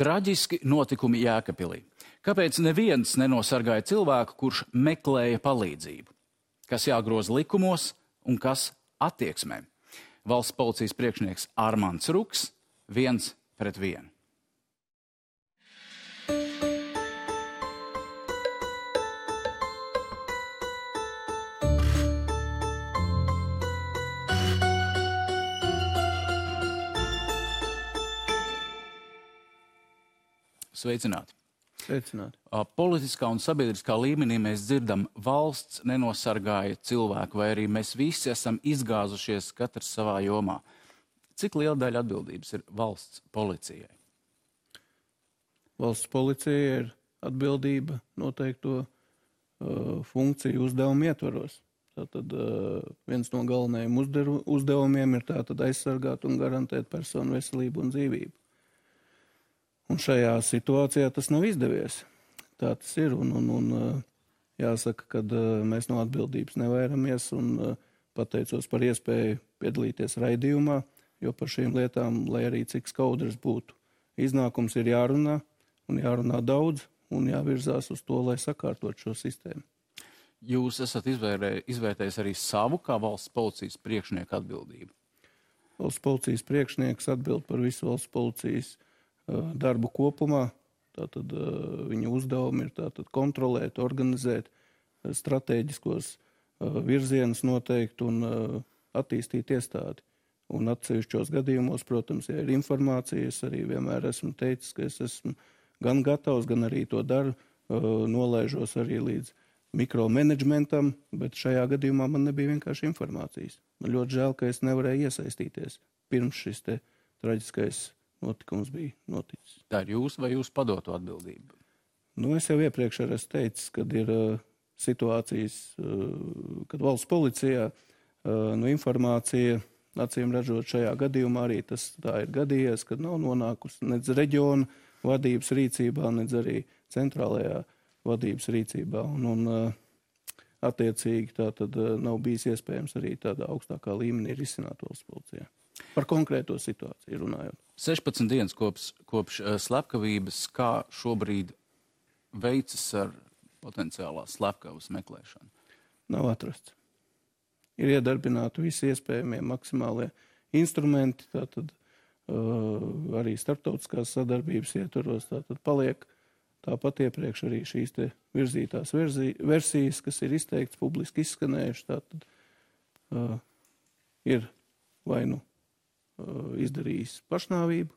Traģiski notikumi Jēkabpilī. Kāpēc neviens nenosargāja cilvēku, kurš meklēja palīdzību? Kas jāgroza likumos un kas attieksmē? Valsts policijas priekšnieks Armands Ruks 1-1. Sveicināti. Sveicināti. Politiskā un sabiedriskā līmenī mēs dzirdam, valsts nenosargāja cilvēku, vai arī mēs visi esam izgāzušies katrs savā jomā. Cik liela daļa atbildības ir valsts policijai? Valsts policija ir atbildība noteikto funkciju uzdevumu ietvaros. Tātad viens no galvenajiem uzdevumiem ir tātad aizsargāt un garantēt personu veselību un dzīvību. Un šajā situācijā tas nav izdevies. Tā tas ir. Un jāsaka, ka mēs no atbildības nevairamies un pateicos par iespēju piedalīties raidījumā, jo par šīm lietām, lai arī cik skaudrs būtu, iznākums ir jārunā un jārunā daudz un jāvirzās uz to, lai sakārtot šo sistēmu. Jūs esat izvērtējis arī savu kā valsts policijas priekšnieku atbildību? Valsts policijas priekšnieks atbild par visu valsts policijas darbu kopumā. Tātad viņa uzdevumi ir tātad kontrolēt, organizēt, stratēģiskos virzienus noteikt un attīstīt iestādi. Un atsevišķos gadījumos, protams, ja ir informācija, es arī vienmēr esmu teicis, ka es esmu gan gatavs, gan arī to daru, nolaižos arī līdz mikromanagementam, bet šajā gadījumā man nebija vienkārši informācijas. Man ļoti žēl, ka es nevarēju iesaistīties pirms šis te traģiskais notikums bija noticis. Tā ir jūs vai jūs padoto atbildību? Es jau iepriekš arī esmu teicis, kad ir situācijas, kad valsts policijā informācija, acīm redzot šajā gadījumā arī tas tā ir gadījies, kad nav nonākusi nedz reģiona vadības rīcībā, nedz arī centrālajā vadības rīcībā. Un attiecīgi tā tad nav bijis iespējams arī tādā augstākā līmenī risināt valsts policijā. Par konkrēto situāciju runājot. 16 dienas kopš slepkavības, kā šobrīd veicas ar potenciālās slepkavas meklēšanu? Nav atrasts. Ir iedarbināti visi iespējamie maksimālie instrumenti, tātad arī starptautiskās sadarbības ietvaros, tātad paliek tāpat iepriekš arī šīs te virzītās versijas, kas ir izteikts, publiski izskanējuši, tātad ir vai nu izdarījis pašnāvību,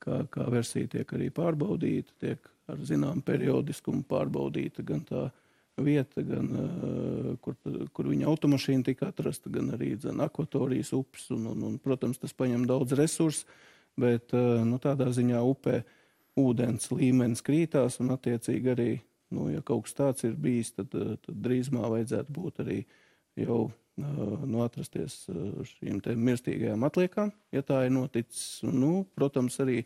kā versija tiek arī pārbaudīta, tiek ar zinām periodiskumu pārbaudīta gan tā vieta, gan kur viņa automašīna tika atrasta, gan arī akvatorijas upes, un protams, tas paņem daudz resursu, bet tādā ziņā upē ūdens līmenis krītās, un attiecīgi arī, ja kaut kas tāds ir bijis, tad drīzumā vajadzētu būt arī jau atrasties šīm te mirstīgajām atliekām, ja tā ir noticis. Protams, arī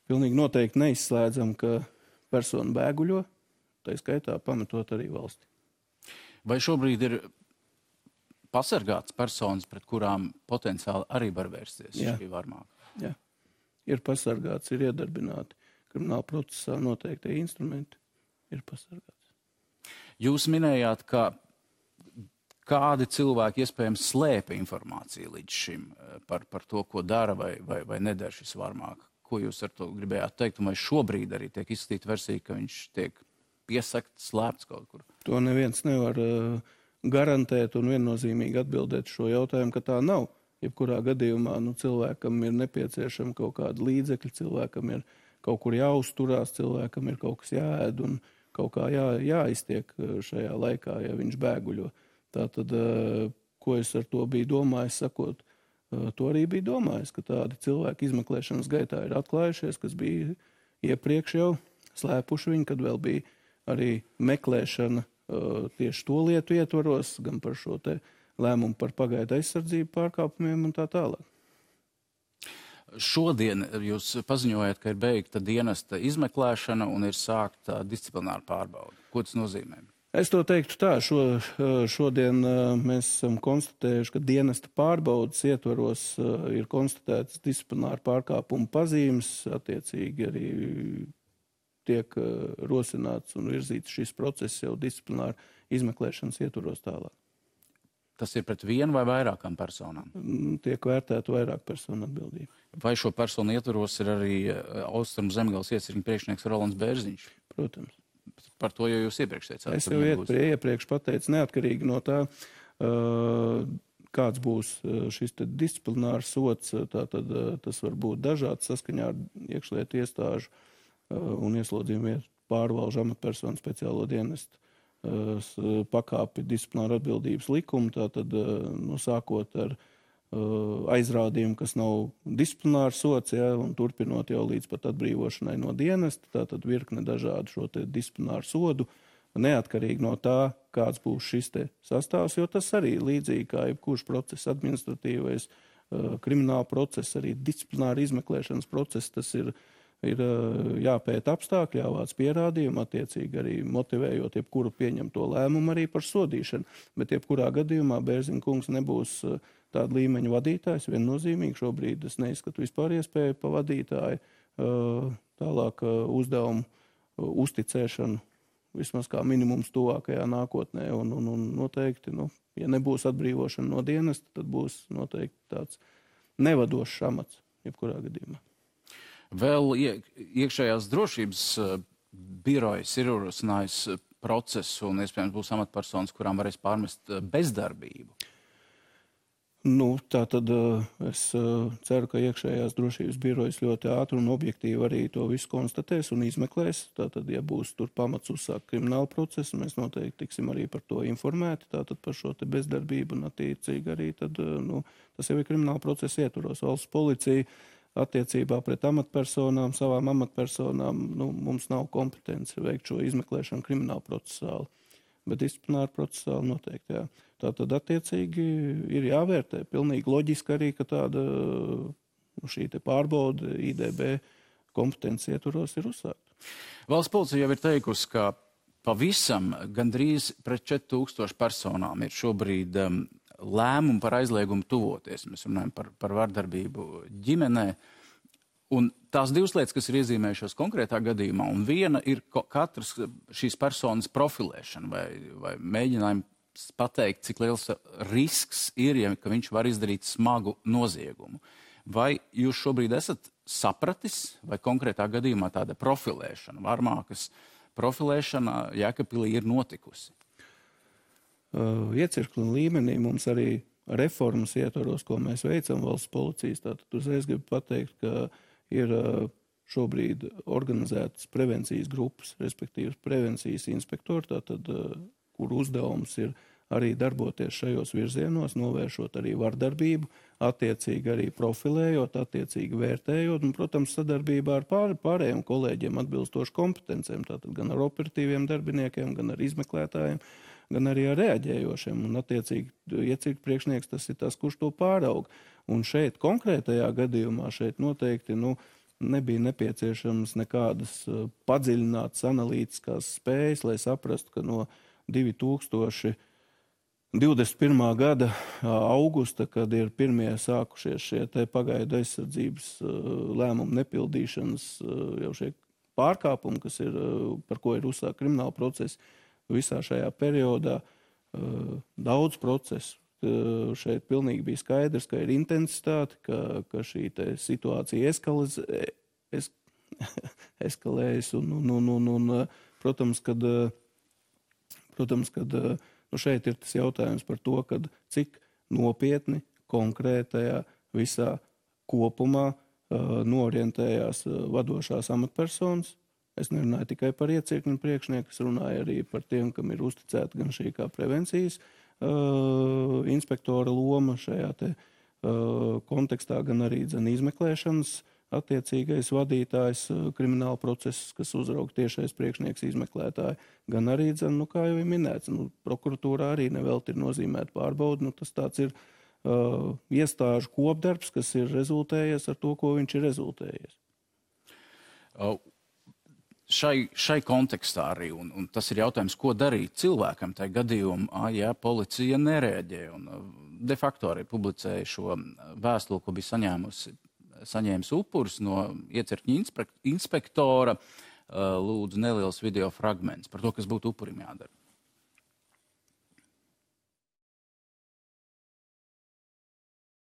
pilnīgi noteikti neizslēdzam, ka persona bēguļo, tā skaitā pametot arī valsti. Vai šobrīd ir pasargāts personas, pret kurām potenciāli arī var vērsties šī varmāka? Jā, ir pasargāts, ir iedarbināti krimināla procesā noteiktie instrumenti, ir pasargāts. Jūs minējāt, ka kādi cilvēki iespējams slēpa informāciju līdz šim par to, ko dara vai nedara šis varmāk. Ko jūs ar to gribējāt teikt? Un vai šobrīd arī tiek izskatīta versija, ka viņš tiek piesakts, slēpts kaut kur? To neviens nevar garantēt un viennozīmīgi atbildēt šo jautājumu, ka tā nav. Jebkurā gadījumā cilvēkam ir nepieciešama kaut kāda līdzekļa, cilvēkam ir kaut kur jāuzturās, cilvēkam ir kaut kas jāēd un kaut kā jāiztiek šajā laikā, ja viņš bēguļo. Tātad, ko es ar to biju domājis, sakot, to arī biju domājis, ka tādi cilvēki izmeklēšanas gaitā ir atklājušies, kas bija iepriekš jau slēpuši viņu, kad vēl bija arī meklēšana tieši to lietu ietvaros, gan par šo te lēmumu par pagaidu aizsardzību pārkāpumiem un tā tālāk. Šodien jūs paziņojat, ka ir beigta dienesta izmeklēšana un ir sākta disciplināra pārbaude. Ko tas nozīmē? Es to teiktu tā, šodien mēs esam konstatējuši, ka dienesta pārbaudas ietvaros ir konstatētas disciplināra pārkāpuma pazīmes, attiecīgi arī tiek rosināts un virzīts šis process jau disciplināra izmeklēšanas ietvaros tālāk. Tas ir pret vienu vai vairākām personām? Tiek vērtēta vairāk personu atbildība. Vai šo personu ietvaros ir arī Austrumu Zemgales iecirkņa priekšnieks Rolands Bērziņš? Protams. Par to jau jūs iepriekš teicāt. Es jau iepriekš pateicu, neatkarīgi no tā, kāds būs šis disciplinārs sots, tātad tas var būt dažāds saskaņā ar iekšlietu iestāžu un ieslodzījumu pārvalžu amatpersonu speciālo dienestu pakāpi disciplināra atbildības likumu, tātad sākot ar aizrādījumu, kas nav disciplinārs sots, un turpinot jau līdz pat atbrīvošanai no dienesta, tātad virkne dažādu šo te disciplināru sodu, neatkarīgi no tā, kāds būs šis te sastāvs, jo tas arī līdzīgi kā jebkurš process, administratīvais, krimināla process, arī disciplināra izmeklēšanas process, tas ir jāpēta apstākļi, jāvāc pierādījumi, attiecīgi arī motivējot jebkuru pieņemto lēmumu arī par sodīšanu. Bet jebkurā gadījumā Bērziņa kungs nebūs tāda līmeņa vadītājs, viennozīmīgi. Šobrīd es neizskatu vispār iespēju pa vadītāju tālāk uzdevumu uzticēšanu, vismaz kā minimums tuvākajā nākotnē. Un noteikti, ja nebūs atbrīvošana no dienesta, tad būs noteikti tāds nevadošs amats jebkurā gadījumā. Vēl iekšējās drošības birojas ir ierosinājis procesu un iespējams būs amatpersonas, kurām varēs pārmest bezdarbību. Tā tad es ceru, ka iekšējās drošības birojas ļoti ātri un objektīvi arī to visu konstatēs un izmeklēs. Tātad, ja būs tur pamats uzsākt kriminālu procesu, mēs noteikti tiksim arī par to informēti, tātad par šo te bezdarbību un attiecīgi arī tad, tas jau ir krimināla procesa ietvaros. Valsts policija attiecībā pret amatpersonām, savām amatpersonām, mums nav kompetence veikt šo izmeklēšanu krimināla procesāli, bet disciplināra procesāli noteikti, jā. Tātad attiecīgi ir jāvērtē. Pilnīgi loģiski arī, ka tāda šī te pārbauda IDB kompetences ietvaros ir uzsākta. Valsts policija jau ir teikusi, ka pavisam gandrīz pret 4000 personām ir šobrīd lēmumu par aizliegumu tuvoties. Mēs runājam par vardarbību ģimenē. Un tās divas lietas, kas ir iezīmējušās konkrētā gadījumā, un viena ir katras šīs personas profilēšana vai mēģinājumi pateikt, cik liels risks ir, ka viņš var izdarīt smagu noziegumu. Vai jūs šobrīd esat sapratis, vai konkrētā gadījumā tāda profilēšana, Varmākas profilēšana Jēkabpilī ir notikusi? Iecirkļu līmenī mums arī reformas ietvaros, ko mēs veicam valsts policijas. Tātad uzreiz gribu pateikt, ka ir šobrīd organizētas prevencijas grupas, respektīvi prevencijas inspektori, tātad, kur uzdevums ir arī darboties šajos virzienos, novēršot arī vardarbību, attiecīgi arī profilējot, attiecīgi vērtējot, un, protams, sadarbībā ar pārējiem kolēģiem atbilstoši kompetencēm, tātad gan ar operatīviem darbiniekiem, gan ar izmeklētājiem, gan arī ar reaģējošiem, un attiecīgi iecirkņu priekšnieks tas ir tas, kurš to pāraug. Un šeit konkrētajā gadījumā šeit noteikti nebija nepieciešams nekādas padziļinātas analītiskās spējas, lai saprastu, ka no 2021. Gada augusta, kad ir pirmie sākušies šie te pagaidu aizsardzības lēmumu nepildīšanas jau šie pārkāpumi, kas ir, par ko ir uzsākt krimināla procesa, visā šajā periodā daudz procesu. Šeit pilnīgi bija skaidrs, ka ir intensitāte, ka šī situācija eskalējas un protams, kad šeit ir tas jautājums par to, kad cik nopietni konkrētajā visā kopumā norientējās vadošās amatpersonas. Es nerunāju tikai par iecirkņu priekšnieku, es runāju arī par tiem, kam ir uzticēta gan šī kā prevencijas inspektora loma šajā te kontekstā, gan arī izmeklēšanas attiecīgais vadītājs krimināla process, kas uzraug tiešais priekšnieks izmeklētāji, gan arī, kā jau ir minēts, prokuratūrā arī nevelti ir nozīmēta pārbauda, tas tāds ir iestāžu kopdarbs, kas ir rezultējies ar to, ko viņš ir rezultējies. šai kontekstā arī, un tas ir jautājums, ko darīt cilvēkam tajā gadījumā, ja policija nereaģē. Un de facto arī publicēja šo vēstuli, ko bija saņēmis upuris no iecirkņa inspektora, lūdzu neliels video fragments par to, kas būtu upurim jādara.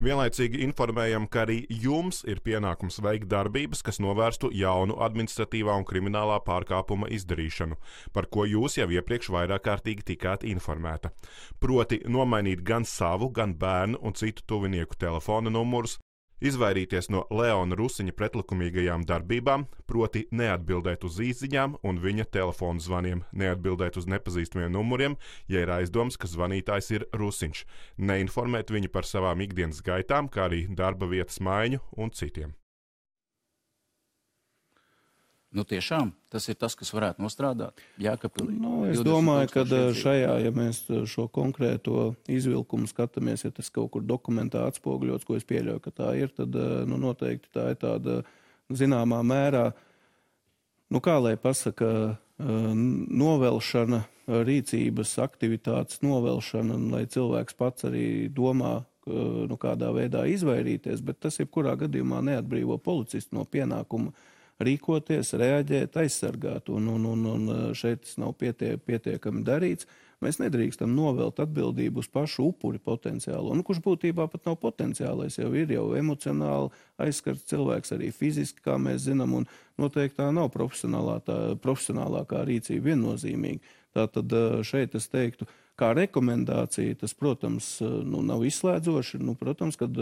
Vienlaicīgi informējam, ka arī jums ir pienākums veikt darbības, kas novērstu jaunu administratīvā un kriminālā pārkāpuma izdarīšanu, par ko jūs jau iepriekš vairāk kārtīgi tikāt informēta. Proti nomainīt gan savu, gan bērnu un citu tuvinieku telefona numurus, izvairīties no Leona Rusiņa pretlikumīgajām darbībām, proti neatbildēt uz īsziņām un viņa telefonu zvaniem, neatbildēt uz nepazīstamiem numuriem, ja ir aizdoms, ka zvanītājs ir Rusiņš, neinformēt viņu par savām ikdienas gaitām, kā arī darba vietas maiņu un citiem. Nu tiešām, tas ir tas, kas varētu nostrādāt Jēkabpilī. Es domāju, ka šajā, ja mēs šo konkrēto izvilkumu skatāmies, ja tas kaut kur dokumentā atspoguļots, ko es pieļauju, ka tā ir, tad noteikti tā ir tāda zināmā mērā, kā lai pasaka, novelšana, rīcības aktivitātes novelšana, lai cilvēks pats arī domā, kādā veidā izvairīties, bet tas jebkurā gadījumā neatbrīvo policistu no pienākuma rīkoties, reaģēt, aizsargāt, un šeit tas nav pietiekami darīts. Mēs nedrīkstam novelt atbildību uz pašu upuri potenciālo, kurš būtībā pat nav potenciālais, jau ir emocionāli aizskarts cilvēks, arī fiziski, kā mēs zinām, un noteikti tā nav profesionālākā rīcība viennozīmīgi. Tātad šeit es teiktu, kā rekomendācija, tas, protams, nav izslēdzoši. Protams, kad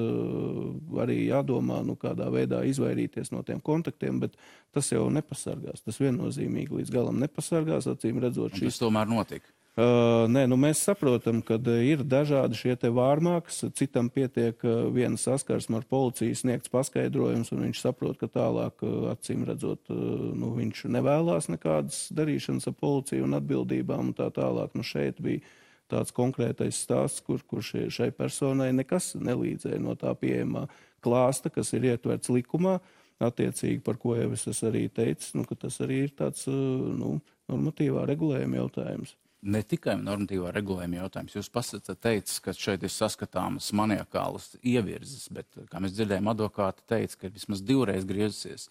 arī jādomā, kādā veidā izvairīties no tiem kontaktiem, bet tas jau nepasargās. Tas viennozīmīgi līdz galam nepasargās, acīm redzot. Tas tomēr notika. Nē, mēs saprotam, ka ir dažādi šie te vārmāks, citam pietiek viena saskarsme ar policiju sniegts paskaidrojums, un viņš saprot, ka tālāk, acīm redzot, viņš nevēlās nekādas darīšanas ar policiju un atbildībām un tā tālāk. Šeit bija tāds konkrētais stāsts, kur šai personai nekas nelīdzēja no tā pieejamā klāsta, kas ir ietverts likumā, attiecīgi, par ko jau es arī teicu, ka tas arī ir tāds normatīvā regulējuma jautājums. Ne tikai normatīvā regulējuma jautājums. Jūs pats teicat, ka šeit ir saskatāmas maniakālas ievirzes, bet, kā mēs dzirdējām, advokāti teica, ka vismaz 2 reizes griezusies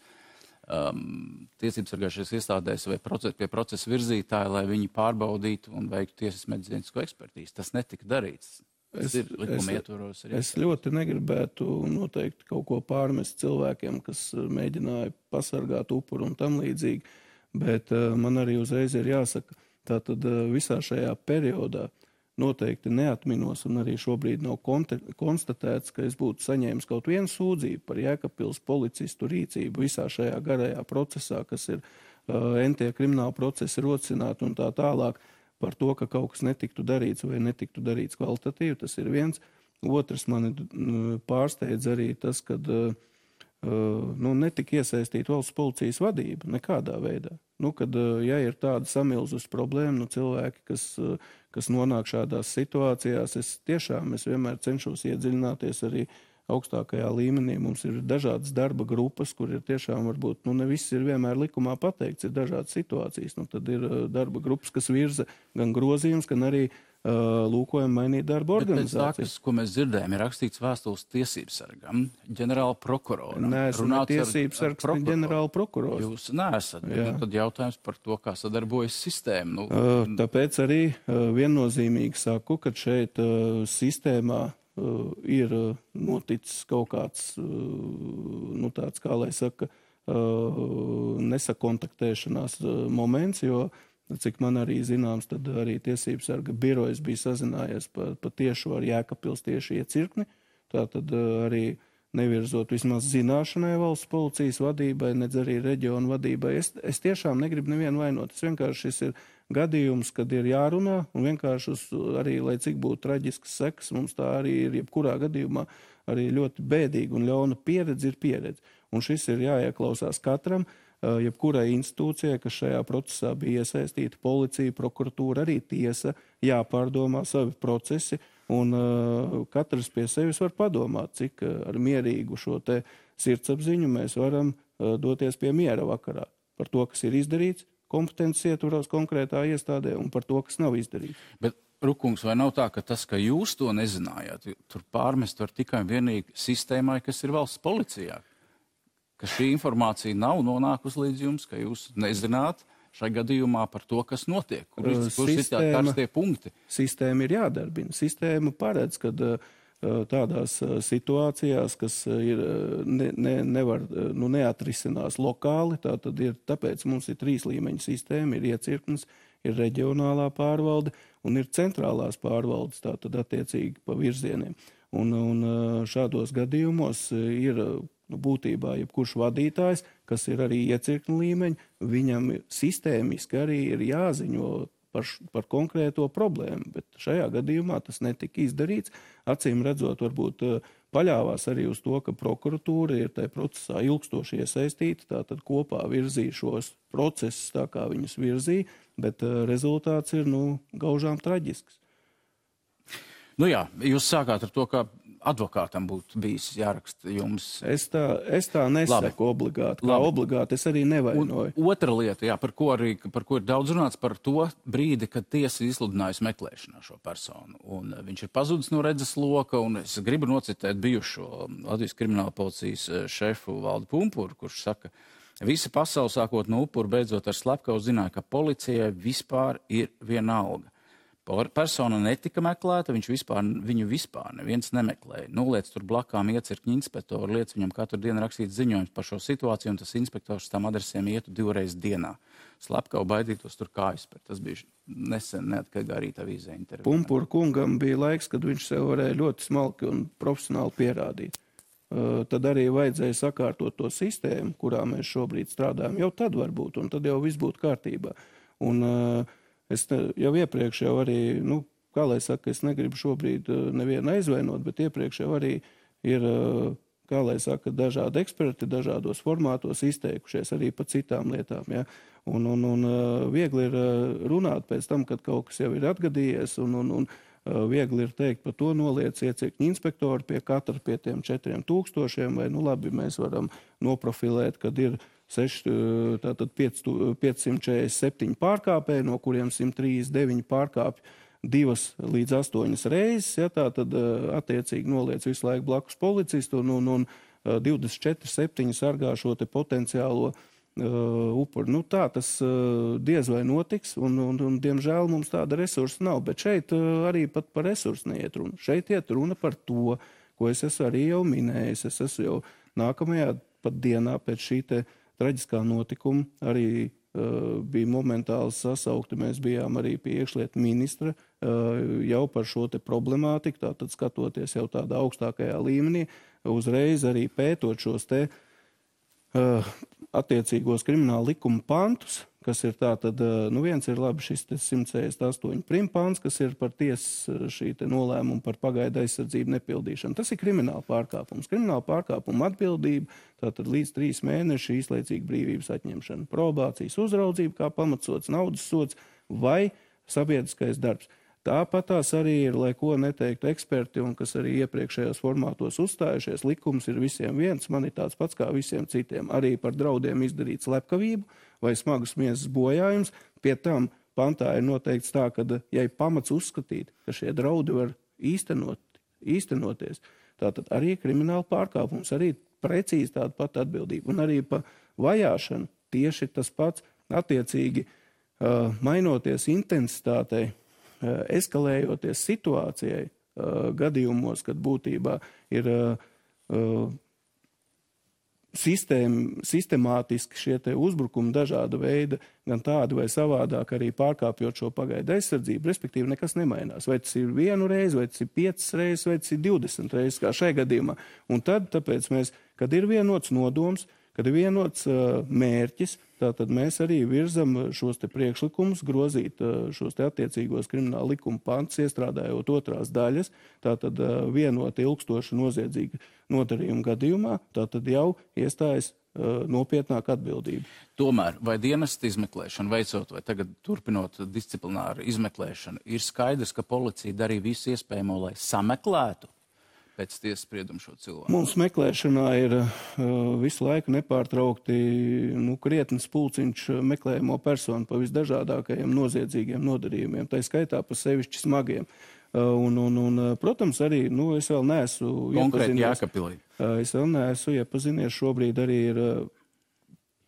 tiesības sargājušajās iestādēs vai pie procesa virzītāji, lai viņi pārbaudītu un veiktu tiesas medicīnisko ekspertīzi. Tas netika darīts. Tas ir likuma ietvaros. Es ļoti negribētu noteikti kaut ko pārmest cilvēkiem, kas mēģināja pasargāt upuru un tam līdzīgi, bet man arī uzreiz ir jāsaka, tātad visā šajā periodā noteikti neatminos un arī šobrīd nav konstatēts, ka es būtu saņēmis kaut vienu sūdzību par Jēkabpils policistu rīcību visā šajā garajā procesā, kas ir entie krimināla procesi rosināti un tā tālāk par to, ka kaut kas netiktu darīts vai netiktu darīts kvalitatīvi. Tas ir viens. Otrs mani pārsteidz arī tas, kad netika iesaistīta valsts policijas vadība nekādā veidā. Kad, ja ir tāda samilzus problēma, cilvēki, kas nonāk šādās situācijās, es vienmēr cenšos iedziļināties arī augstākajā līmenī. Mums ir dažādas darba grupas, kur ir tiešām varbūt, ne viss ir vienmēr likumā pateikts, ir dažādas situācijas. Tad ir darba grupas, kas virza gan grozījums, gan arī lūkojam mainīt darba organizāciju. Tas, ko mēs dzirdējām, ir rakstīts vēstules tiesības sargam, ģenerāla prokuroram. Neesmu tiesības sargs, ne ģenerāla prokurors. Jūs neesat, bet tad jautājums par to, kā sadarbojas sistēma. Tāpēc arī viennozīmīgi saku, ka šeit sistēmā ir noticis kaut kāds, tāds, kā lai saka, nesakontaktēšanās moments, jo cik man arī zināms, tad arī tiesības sarga birojas bija sazinājies pa tiešu ar Jēkabpils tieši iecirkni. Tātad arī nevirzot vismaz zināšanai valsts policijas vadībai, nedz arī reģionu vadībai. Es tiešām negribu nevienu vainot. Vienkārši šis ir gadījums, kad ir jārunā, un vienkārši arī, lai cik būtu traģisks sekas, mums tā arī ir jebkurā gadījumā arī ļoti bēdīga un ļauna pieredze ir pieredze. Un šis ir jāieklausās katram, jebkurai institūcijai, kas šajā procesā bija iesaistīta, policija, prokuratūra, arī tiesa, jāpārdomā savi procesi, un katrs pie sevis var padomāt, cik ar mierīgu šo te sirdsapziņu mēs varam doties pie miera vakarā. par to, kas ir izdarīts, kompetences ietvaros konkrētā iestādē un par to, kas nav izdarīts. Bet, Rukungs, vai nav tā, ka tas, ka jūs to nezinājāt, tur pārmest var tikai un vienīgi sistēmai, kas ir valsts policijā? Ka šī informācija nav nonākusi līdz jums, ka jūs nezināt šai gadījumā par to, kas notiek? Kur ir tādi karstie punkti? Sistēma ir jādarbina. Sistēma paredz, ka tādās situācijās, kas ir neatrisinās lokāli, tāpēc mums ir 3 līmeņu sistēma, ir iecirknis, ir reģionālā pārvalde un ir centrālās pārvaldes, tātad attiecīgi pa virzieniem. Un šādos gadījumos ir būtībā jebkurš vadītājs, kas ir arī iecirkņu līmeņi, viņam sistēmiski arī ir jāziņo par konkrēto problēmu, bet šajā gadījumā tas netika izdarīts. Acīm redzot, varbūt paļāvās arī uz to, ka prokuratūra ir tajā procesā ilgstoši iesaistīta, tātad kopā virzīja šos procesus tā, kā viņus virzīja, bet rezultāts ir, gaužām traģisks. Jā, jūs sākāt ar to, ka advokātam būtu bijis jāraksta jums. Es tā nesaku obligāti. Kā obligāti es arī nevainoju. Otra lieta, par ko ir daudz runāts, par to brīdi, kad tiesa izsludinājusi meklēšanā šo personu. Un viņš ir pazudis no redzes loka, un es gribu nocitēt bijušo Latvijas krimināla policijas šefu Valdi Pumpuru, kurš saka, visa pasaule sākot no upura, beidzot ar slepkavu zināja, ka policijai vispār ir vienalga. Persona netika meklēta, viņu vispār neviens nemeklēja. Noliec tur blakām iecirkņu inspektoru, liec viņam katru dienu rakstīt ziņojums par šo situāciju, un tas inspektors tam adresēm ietu 2 reizes dienā. Slepkavu baidītos tur kājas, bet tas bija nesen neatkarīgā rīta avīzē intervijā. Pumpura kungam bija laiks, kad viņš sev varēja ļoti smalki un profesionāli pierādīt. Tad arī vajadzēja sakārtot to sistēmu, kurā mēs šobrīd strādājam. Jau tad varbūt, un tad jau viss būtu kārtībā. Un es jau iepriekš jau arī, kā lai saka, es negribu šobrīd nevienu aizvainot, bet iepriekš jau arī ir, kā lai saka, dažādi eksperti dažādos formātos izteikušies arī par citām lietām. Ja? Un viegli ir runāt pēc tam, kad kaut kas jau ir atgadījies, un viegli ir teikt par to noliec iecirkņu inspektoru pie katra pie tiem 4000, vai labi, mēs varam noprofilēt, kad ir 547 pārkāpēji, no kuriem 139 pārkāpj 2 līdz 8 reizes, ja, tātad attiecīgi noliec visu laiku blakus policistu un 24/7 sargā šo te potenciālo upuri. Tā tas diez vai notiks, un diemžēl mums tāda resursa nav, bet šeit arī pat par resursu neiet runa. Šeit iet runa par to, ko es esmu arī jau minējis. Es esmu jau nākamajā pat dienā pēc šī te traģiskā notikuma arī bija momentāli sasaukti. Mēs bijām arī pie iekšlietu ministra jau par šo te problemātiku, tātad skatoties jau tādā augstākajā līmenī, uzreiz arī pētot šos te attiecīgos krimināla likuma pantus, kas ir tātad, viens ir labi šis 168 primpāns, kas ir par tiesas šī te nolēmumu par pagaidu aizsardzību nepildīšanu. Tas ir krimināla pārkāpums. Krimināla pārkāpuma atbildība, tātad līdz 3 mēneši īslaicīga brīvības atņemšana, probācijas uzraudzība kā pamatsots, naudas sods vai sabiedriskais darbs. Tāpatās arī ir, lai ko neteiktu eksperti, un kas arī iepriekšējos formātos uzstājušies, likums ir visiem viens, man ir tāds pats kā visiem citiem. Arī par draudiem izdarīt slepkavību vai smagus miesas bojājums. Pie tam pantā ir noteikts tā, ka, ja ir pamats uzskatīt, ka šie draudi var īstenoties, tātad arī krimināla pārkāpums, arī precīzi tāda pati atbildība. Un arī pa vajāšanu tieši tas pats attiecīgi mainoties intensitātei, eskalējoties situācijai gadījumos, kad būtībā ir sistemātiski šie te uzbrukumi dažāda veida, gan tādi vai savādāk arī pārkāpjot šo pagaidu aizsardzību, respektīvi nekas nemainās. Vai tas ir 1 reizi, vai tas ir 5 reizes, vai tas ir 20 reizes, kā šai gadījumā. Un tad, tāpēc mēs, kad ir vienots nodoms, kad ir vienots mērķis, tātad mēs arī virzam šos te priekšlikumus, grozīt šos te attiecīgos krimināla likuma pantus, iestrādājot 2. daļas, tātad vienot ilgstoši noziedzīgu nodarījumu gadījumā, tātad jau iestājas nopietnāk atbildība. Tomēr, vai dienesta izmeklēšana veicot, vai tagad turpinot disciplināru izmeklēšanu, ir skaidrs, ka policija darīja visu iespējamo, lai sameklētu pēc tiesas sprieduma šo cilvēku? Mums meklēšanā ir visu laiku nepārtraukti krietnes pulciņš meklējamo personu pa visdažādākajiem noziedzīgiem nodarījumiem, tā skaitā pa sevišķi smagiem. Protams, arī es vēl neesmu konkrēti Jēkabpilī. Es vēl neesmu iepazinies, šobrīd arī ir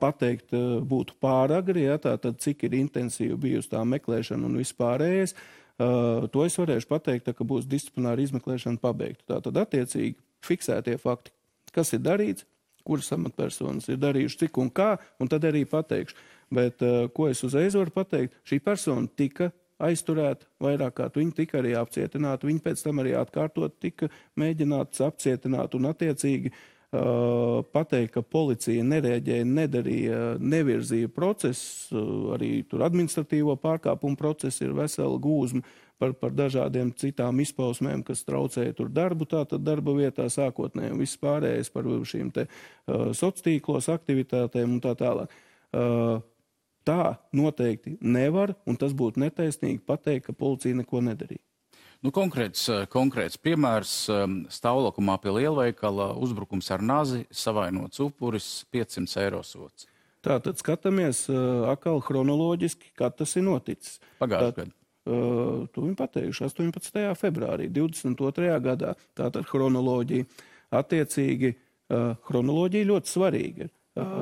pateikt būtu pāragri, tātad cik ir intensīvi bijusi tā meklēšana un vispārējais. To es varēšu pateikt, ka būs disciplināra izmeklēšana pabeigta. Tātad attiecīgi fiksētie fakti, kas ir darīts, kuras amatpersonas ir darījuši cik un kā, un tad arī pateikšu. Bet ko es uzreiz varu pateikt, šī persona tika aizturēta vairāk kārt, viņa tika arī apcietināta, viņa pēc tam arī atkārtot tika mēģināts apcietināt un attiecīgi pateikt, ka policija nereaģēja, nedarīja, nevirzīja procesu, arī tur administratīvo pārkāpumu procesu ir vesela gūzma par dažādiem citām izpausmēm, kas traucēja tur darbu, tātad darba vietā sākotnēji un viss pārējais par šīm te sociālos aktivitātēm un tā tālāk. Tā noteikti nevar, un tas būtu netaisnīgi pateikt, ka policija neko nedarīja. Konkrēts piemērs stāvlokumā pie lielveikala, uzbrukums ar nazi, savainots upuris, 500 eiro sots. Tātad skatāmies atkal chronoloģiski, kad tas ir noticis. Pagājušajā gadā. To viņi pateikuši 18. februārī, 22. gadā. Tātad chronoloģija. Attiecīgi, chronoloģija ļoti svarīga.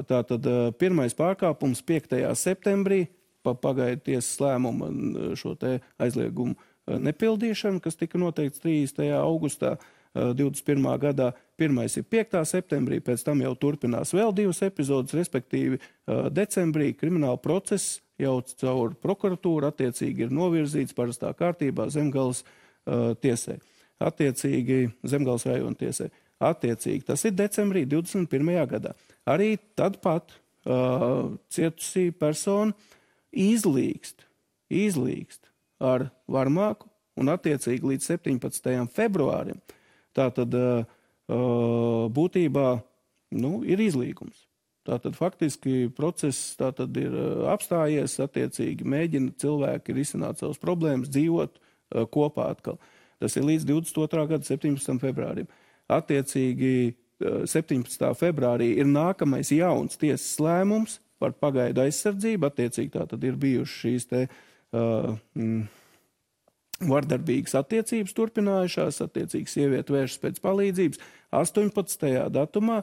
Tātad pirmais pārkāpums 5. septembrī, pagaidu tiesas lēmumu šo te aizliegumu nepildīšanu, kas tika noteikts 30. augustā 21. gadā. Pirmais ir 5. septembrī, pēc tam jau turpinās vēl 2 epizodes, respektīvi decembrī krimināla process jau caur prokuratūru attiecīgi ir novirzīts parastā kārtībā Zemgales tiesai. Attiecīgi Zemgales rajona tiesai. Attiecīgi tas ir decembrī 21. gadā. Arī tad pat cietusī persona izlīgst ar varmāku un attiecīgi līdz 17. februārim. Tātad būtībā ir izlīgums. Tātad faktiski process tātad ir apstājies, attiecīgi mēģina cilvēki risināt savas problēmas, dzīvot kopā atkal. Tas ir līdz 22. gada 17. februārim. Attiecīgi 17. februārī ir nākamais jauns tiesas lēmums par pagaidu aizsardzību. Attiecīgi tātad ir bijušas šīs te vardarbīgas attiecības turpinājušās, attiecīgi sieviete vēršas pēc palīdzības. 18. datumā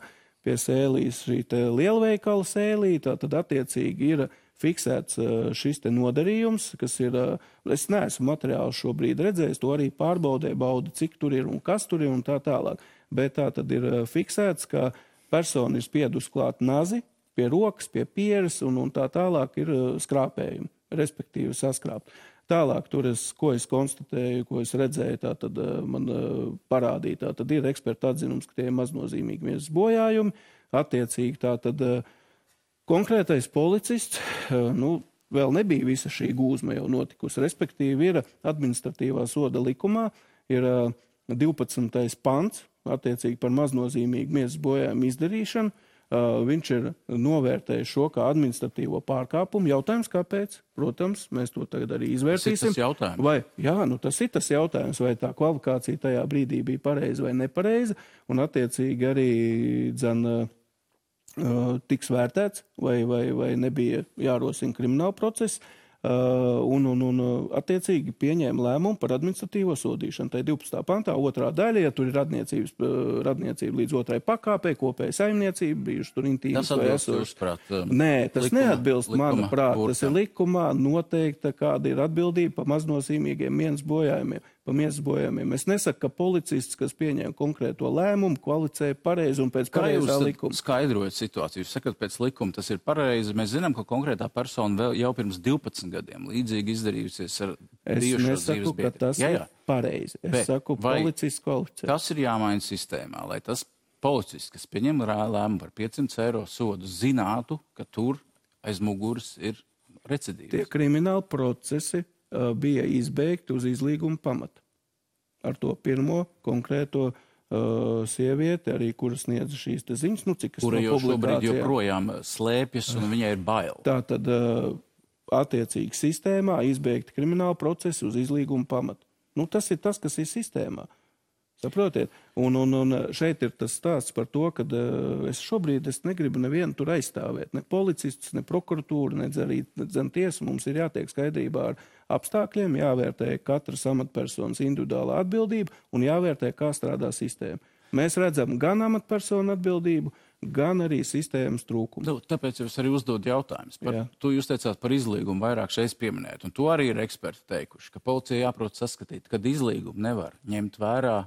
pie sēlīs šī te lielveikala sēlī, tātad attiecīgi ir fiksēts šis te nodarījums, kas ir, es neesmu materiālu šobrīd redzējis, to arī pārbaudē, bauda, cik tur ir un kas tur ir un tā tālāk. Bet tā tad ir fiksēts, ka persona ir spiedus klāt nazi pie rokas, pie pieres un tā tālāk ir skrāpējumi, respektīvi saskrāpt. Tālāk, ko es konstatēju, ko es redzēju, tā tad man parādīja, tā tad ir eksperta atzinums, ka tie ir maznozīmīgi miesas bojājumi. Attiecīgi, tā tad konkrētais policists, vēl nebija visa šī gūzma jau notikusi, respektīvi ir administratīvā soda likumā, ir 12. pants, attiecīgi par maznozīmīgu miesas bojājumu izdarīšanu. Viņš ir novērtējis šo kā administratīvo pārkāpumu. Jautājums, kāpēc? Protams, mēs to tagad arī izvērtīsim. Tas ir tas jautājums. Tas ir tas jautājums, vai tā kvalifikācija tajā brīdī bija pareiza vai nepareiza, un attiecīgi arī tiks vērtēts, vai nebija jārosina krimināla procesa. Attiecīgi pieņēma lēmumu par administratīvo sodīšanu. Tā ir 12. pantā, 2. daļa, ja tur ir radniecība līdz 2. pakāpē, kopēja saimniecība, bijuši tur intīmas vai esošas. Nē, tas neatbilst, manuprāt. Tas ir likumā noteikta, kāda ir atbildība par maznozīmīgiem miesas bojājumiem. Es nesaku, ka policists, kas pieņēma konkrēto lēmumu, kvalificē pareizi un pēc pareizā likuma. Kā jūs skaidrojat situāciju? Jūs sakat, pēc likuma tas ir pareizi. Mēs zinām, ka konkrētā persona vēl jau pirms 12 gadiem līdzīgi izdarījusies ar bijušos dzīves biedru. Es nesaku, ka tas ir pareizi. Es saku, policists kvalificē. Tas ir jāmaina sistēmā, lai tas policists, kas pieņem lēmumu par 500 eiro sodu, zinātu, ka tur aiz muguras ir recidīvs. Tie krimināli procesi bija izbeigti uz izlīguma pamata. Ar to pirmo konkrēto sievieti, arī kura sniedza šīs te ziņas, cik es kura jau šobrīd joprojām slēpjas un viņai ir bail. Tātad attiecīgi sistēmā izbeigti krimināli procesi uz izlīguma pamata. Tas ir tas, kas ir sistēmā. Saprotiet? Un šeit ir tas stāsts par to, ka es šobrīd negribu nevienu tur aizstāvēt. Ne policistus, ne prokuratūru, ne arī tiesu. Mums ir jātiek skaidrībā ar apstākļiem, jāvērtē katras amatpersonas individuālā atbildība un jāvērtē, kā strādā sistēma. Mēs redzam gan amatpersonu atbildību, gan arī sistēmas trūkumu. Tāpēc jūs arī uzdod jautājumus. To jūs teicāt par izlīgumu vairāk šeit pieminēt. Un to arī ir eksperti teikuši, ka policija jāprot saskatīt, kad izlīgumu nevar ņemt vērā,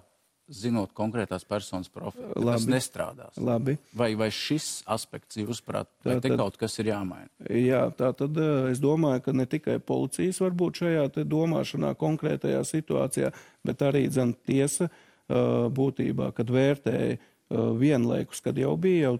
zinot konkrētās personas profilu. Tas nestrādās. Labi. Vai šis aspekts, jūsuprāt, vai te kaut kas ir jāmaina? Jā, tā tad es domāju, ka ne tikai policijas var būt šajā te domāšanā konkrētajā situācijā, bet arī tiesa būtībā, kad vērtēja vienlaikus, kad jau bija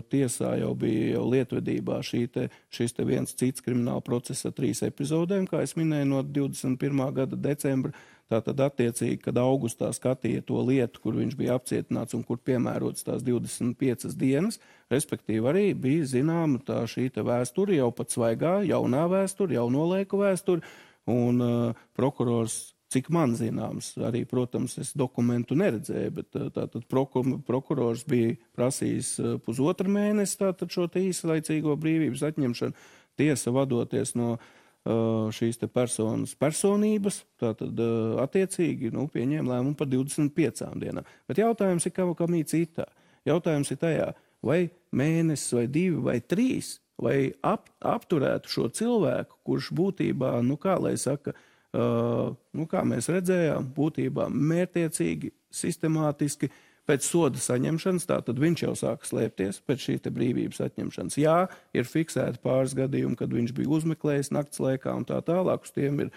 tiesā, jau bija lietvedībā šis viens cits krimināla procesa 3 epizodēm, kā es minēju, no 21. gada decembra. Tātad attiecīgi, kad augustā skatīja to lietu, kur viņš bija apcietināts un kur piemērots tās 25 dienas, respektīvi arī bija zināma šī vēsture, jau pat svaigā, jaunā vēsture, jauno laiku vēsture, un prokurors, cik man zināms, arī, protams, es dokumentu neredzēju, bet tātad prokurors bija prasījis 1,5 mēnesi tātad šo īslaicīgo brīvības atņemšanu, tiesa vadoties no šīs te personas personības, tātad attiecīgi pieņēma lēmumu par 25 dienām. Bet jautājums ir kam citā. Jautājums ir tajā, vai mēnesis, vai 2, vai 3, vai apturētu šo cilvēku, kurš būtībā, kā lai saka, kā mēs redzējām, būtībā mērtiecīgi, sistemātiski, pēc soda saņemšanas, tātad viņš jau sāka slēpties pēc šī brīvības atņemšanas. Jā, ir fiksēti pāris gadījumi, kad viņš bija uzmeklējis nakts laikā un tā tālāk. Uz tiem ir,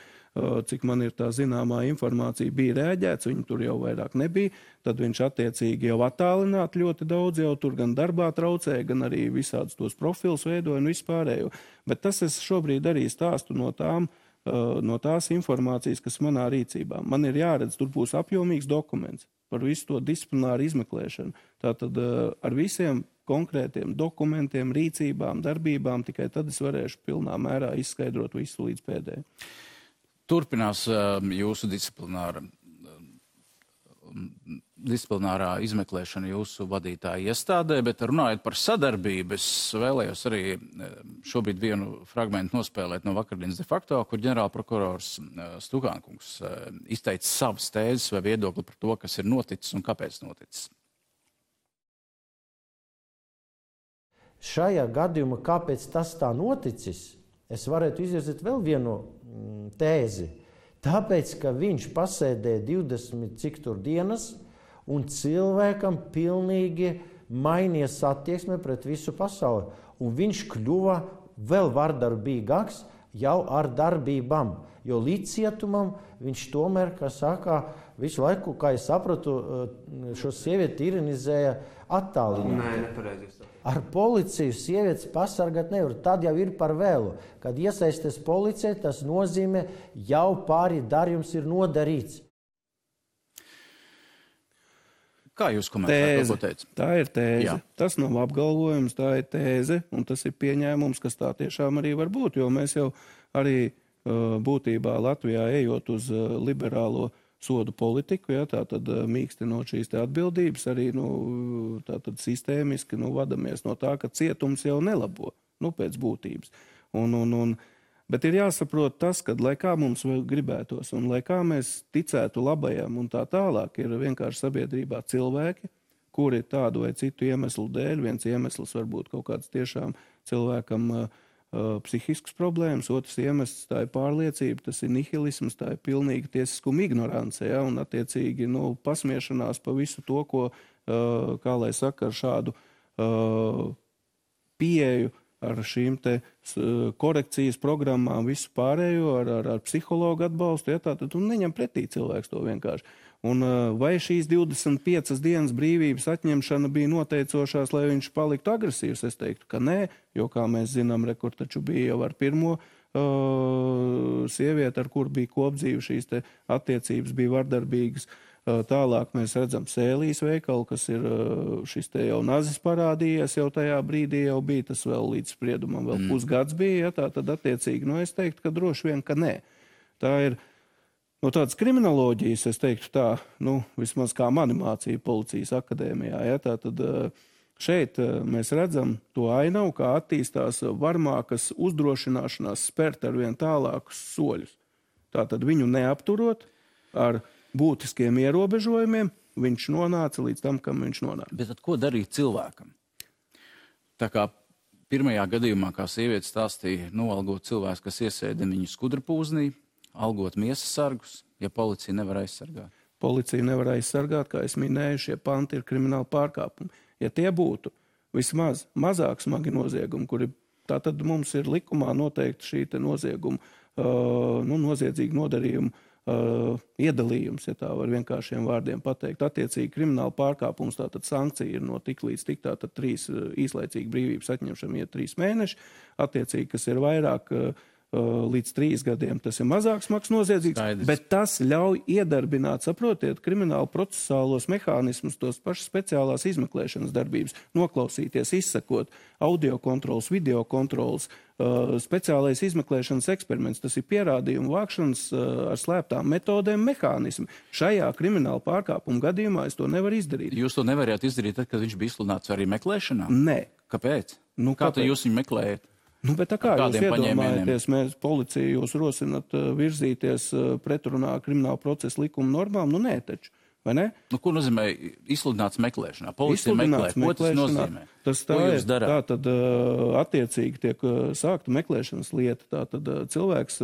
cik man ir tā zināmā informācija, bija rēģēts, viņi tur jau vairāk nebija. Tad viņš attiecīgi jau attālināti ļoti daudz, jau tur gan darbā traucēja, gan arī visādus tos profilus veidoja un vispārējo. Bet tas es šobrīd arī stāstu no tās informācijas, kas manā rīcībā. Man ir jāredz, tur būs apjomīgs dokuments par visu to disciplināru izmeklēšanu. Tātad ar visiem konkrētiem dokumentiem, rīcībām, darbībām, tikai tad es varēšu pilnā mērā izskaidrot visu līdz pēdējai. Turpinās jūsu disciplinārā izmeklēšana jūsu vadītāja iestādē, bet runājot par sadarbību, es vēlējos arī šobrīd vienu fragmentu nospēlēt no vakardienas de facto, kur ģenerālprokurors Stukānkungs izteica savas tēzes vai viedokli par to, kas ir noticis un kāpēc noticis. Šajā gadījumā, kāpēc tas tā noticis, es varētu izvirzīt vēl vienu tēzi. Tāpēc, ka viņš pasēdēja 20 cik tur dienas, un cilvēkam pilnīgi mainījās attieksme pret visu pasauli. Un viņš kļuva vēl vardarbīgāks jau ar darbībām. Jo līdz cietumam viņš tomēr, kā saka, visu laiku, kā es sapratu, šo sievieti ironizēja attālināt. Nē, nepareizi. Ar policiju sievietes pasargāt nevar. Tad jau ir par vēlu. Kad iesaisties policija, tas nozīmē jau pāri darījums ir nodarīts. Kā jūs komentējat, ko teicat? Tā ir tēze. Jā. Tas nav apgalvojums, tā ir tēze, un tas ir pieņēmums, kas tā tiešām arī var būt, jo mēs jau arī būtībā Latvijā ejot uz liberālo sodu politiku, ja, tātad mīkstinot šīs te atbildības, arī tātad sistēmiski vadamies no tā, ka cietums jau nelabo, pēc būtības. Bet ir jāsaprot tas, ka, lai kā mums gribētos un lai kā mēs ticētu labajam un tā tālāk, ir vienkārši sabiedrībā cilvēki, kuri tādu vai citu iemeslu dēļ, viens iemesls var būt kaut kāds tiešām cilvēkam psihisks problēmas, otrs iemesls tā ir pārliecība, tas ir nihilisms, tā ir pilnīga tiesiskuma ignorance, ja, un attiecīgi pasmiešanās pa visu to, ko, kā lai saka, ar šādu pieeju, ar šīm te korekcijas programmām, visu pārējo, ar psihologu atbalstu, ja, tātad un neņem pretī cilvēks to vienkārši. Un vai šīs 25 dienas brīvības atņemšana bija noteicošās, lai viņš paliktu agresīvs? Es teiktu, ka nē, jo, kā mēs zinām, rekur taču bija jau ar pirmo sievieti, ar kur bija kopdzīve, šīs te attiecības bija vardarbīgas. Tālāk mēs redzam Sēlijas veikalu, kas ir šis te jau nazis parādījies, jau tajā brīdī jau bija, tas vēl līdz spriedumam vēl pusgads bija, ja, tā tad attiecīgi, es teiktu, ka droši vien, ka nē. Tā ir No tādas kriminoloģijas, es teiktu tā, vismaz kā mani mācīja policijas akadēmijā, ja, tātad šeit mēs redzam to ainavu, kā attīstās varmākas uzdrošināšanās spērt ar vien tālākus soļus. Tātad viņu neapturot ar būtiskiem ierobežojumiem, viņš nonāca līdz tam, kam viņš nonāca. Bet tad ko darīt cilvēkam? Tā kā pirmajā gadījumā, kā sieviete stāstīja, noalgot cilvēks, kas iesēdina viņu skudrapūznī, algot miesas sargus, ja policija nevar aizsargāt. Policija nevar aizsargāt, kā es minēju, šie panti ir krimināli pārkāpumi. Ja tie būtu vismaz mazāk smagi noziegumi, kuri tātad mums ir likumā noteikti šī te nozieguma, noziedzīgu nodarījumu iedalījums, ja tā var vienkāršiem vārdiem pateikt. Attiecīgi krimināla pārkāpums, tātad sankcija ir no tik līdz tik, tātad 3 īslaicīgi brīvības atņemšana iet 3 mēneši, attiecīgi, kas ir vairāk līdz 3 gadiem, tas ir mazāk smags noziedzīgs, bet tas ļauj iedarbināt, saprotiet, kriminālu procesālos mehānismus, tos pašas speciālās izmeklēšanas darbības, noklausīties, izsakot, audio kontrols, video kontrols, speciālais izmeklēšanas eksperiments, tas ir pierādījumu vākšanas ar slēptām metodēm mehānismi. Šajā krimināla pārkāpuma gadījumā es to nevaru izdarīt. Jūs to nevarējāt izdarīt, tad, kad viņš bija izsludināts arī meklēšanā? Nē. Kāpēc? Kā tad jūs viņu meklējat? Bet tā kā jūs iedomājaties, mēs policija jūs rosinat virzīties pretrunā krimināla procesa likuma normām? Nē, taču, vai ne? Ko nozīmē izsludināts meklēšanā? Policija meklē, ko tas nozīmē? Tas tā ir, tā tad attiecīgi tiek sākta meklēšanas lieta, tā tad cilvēks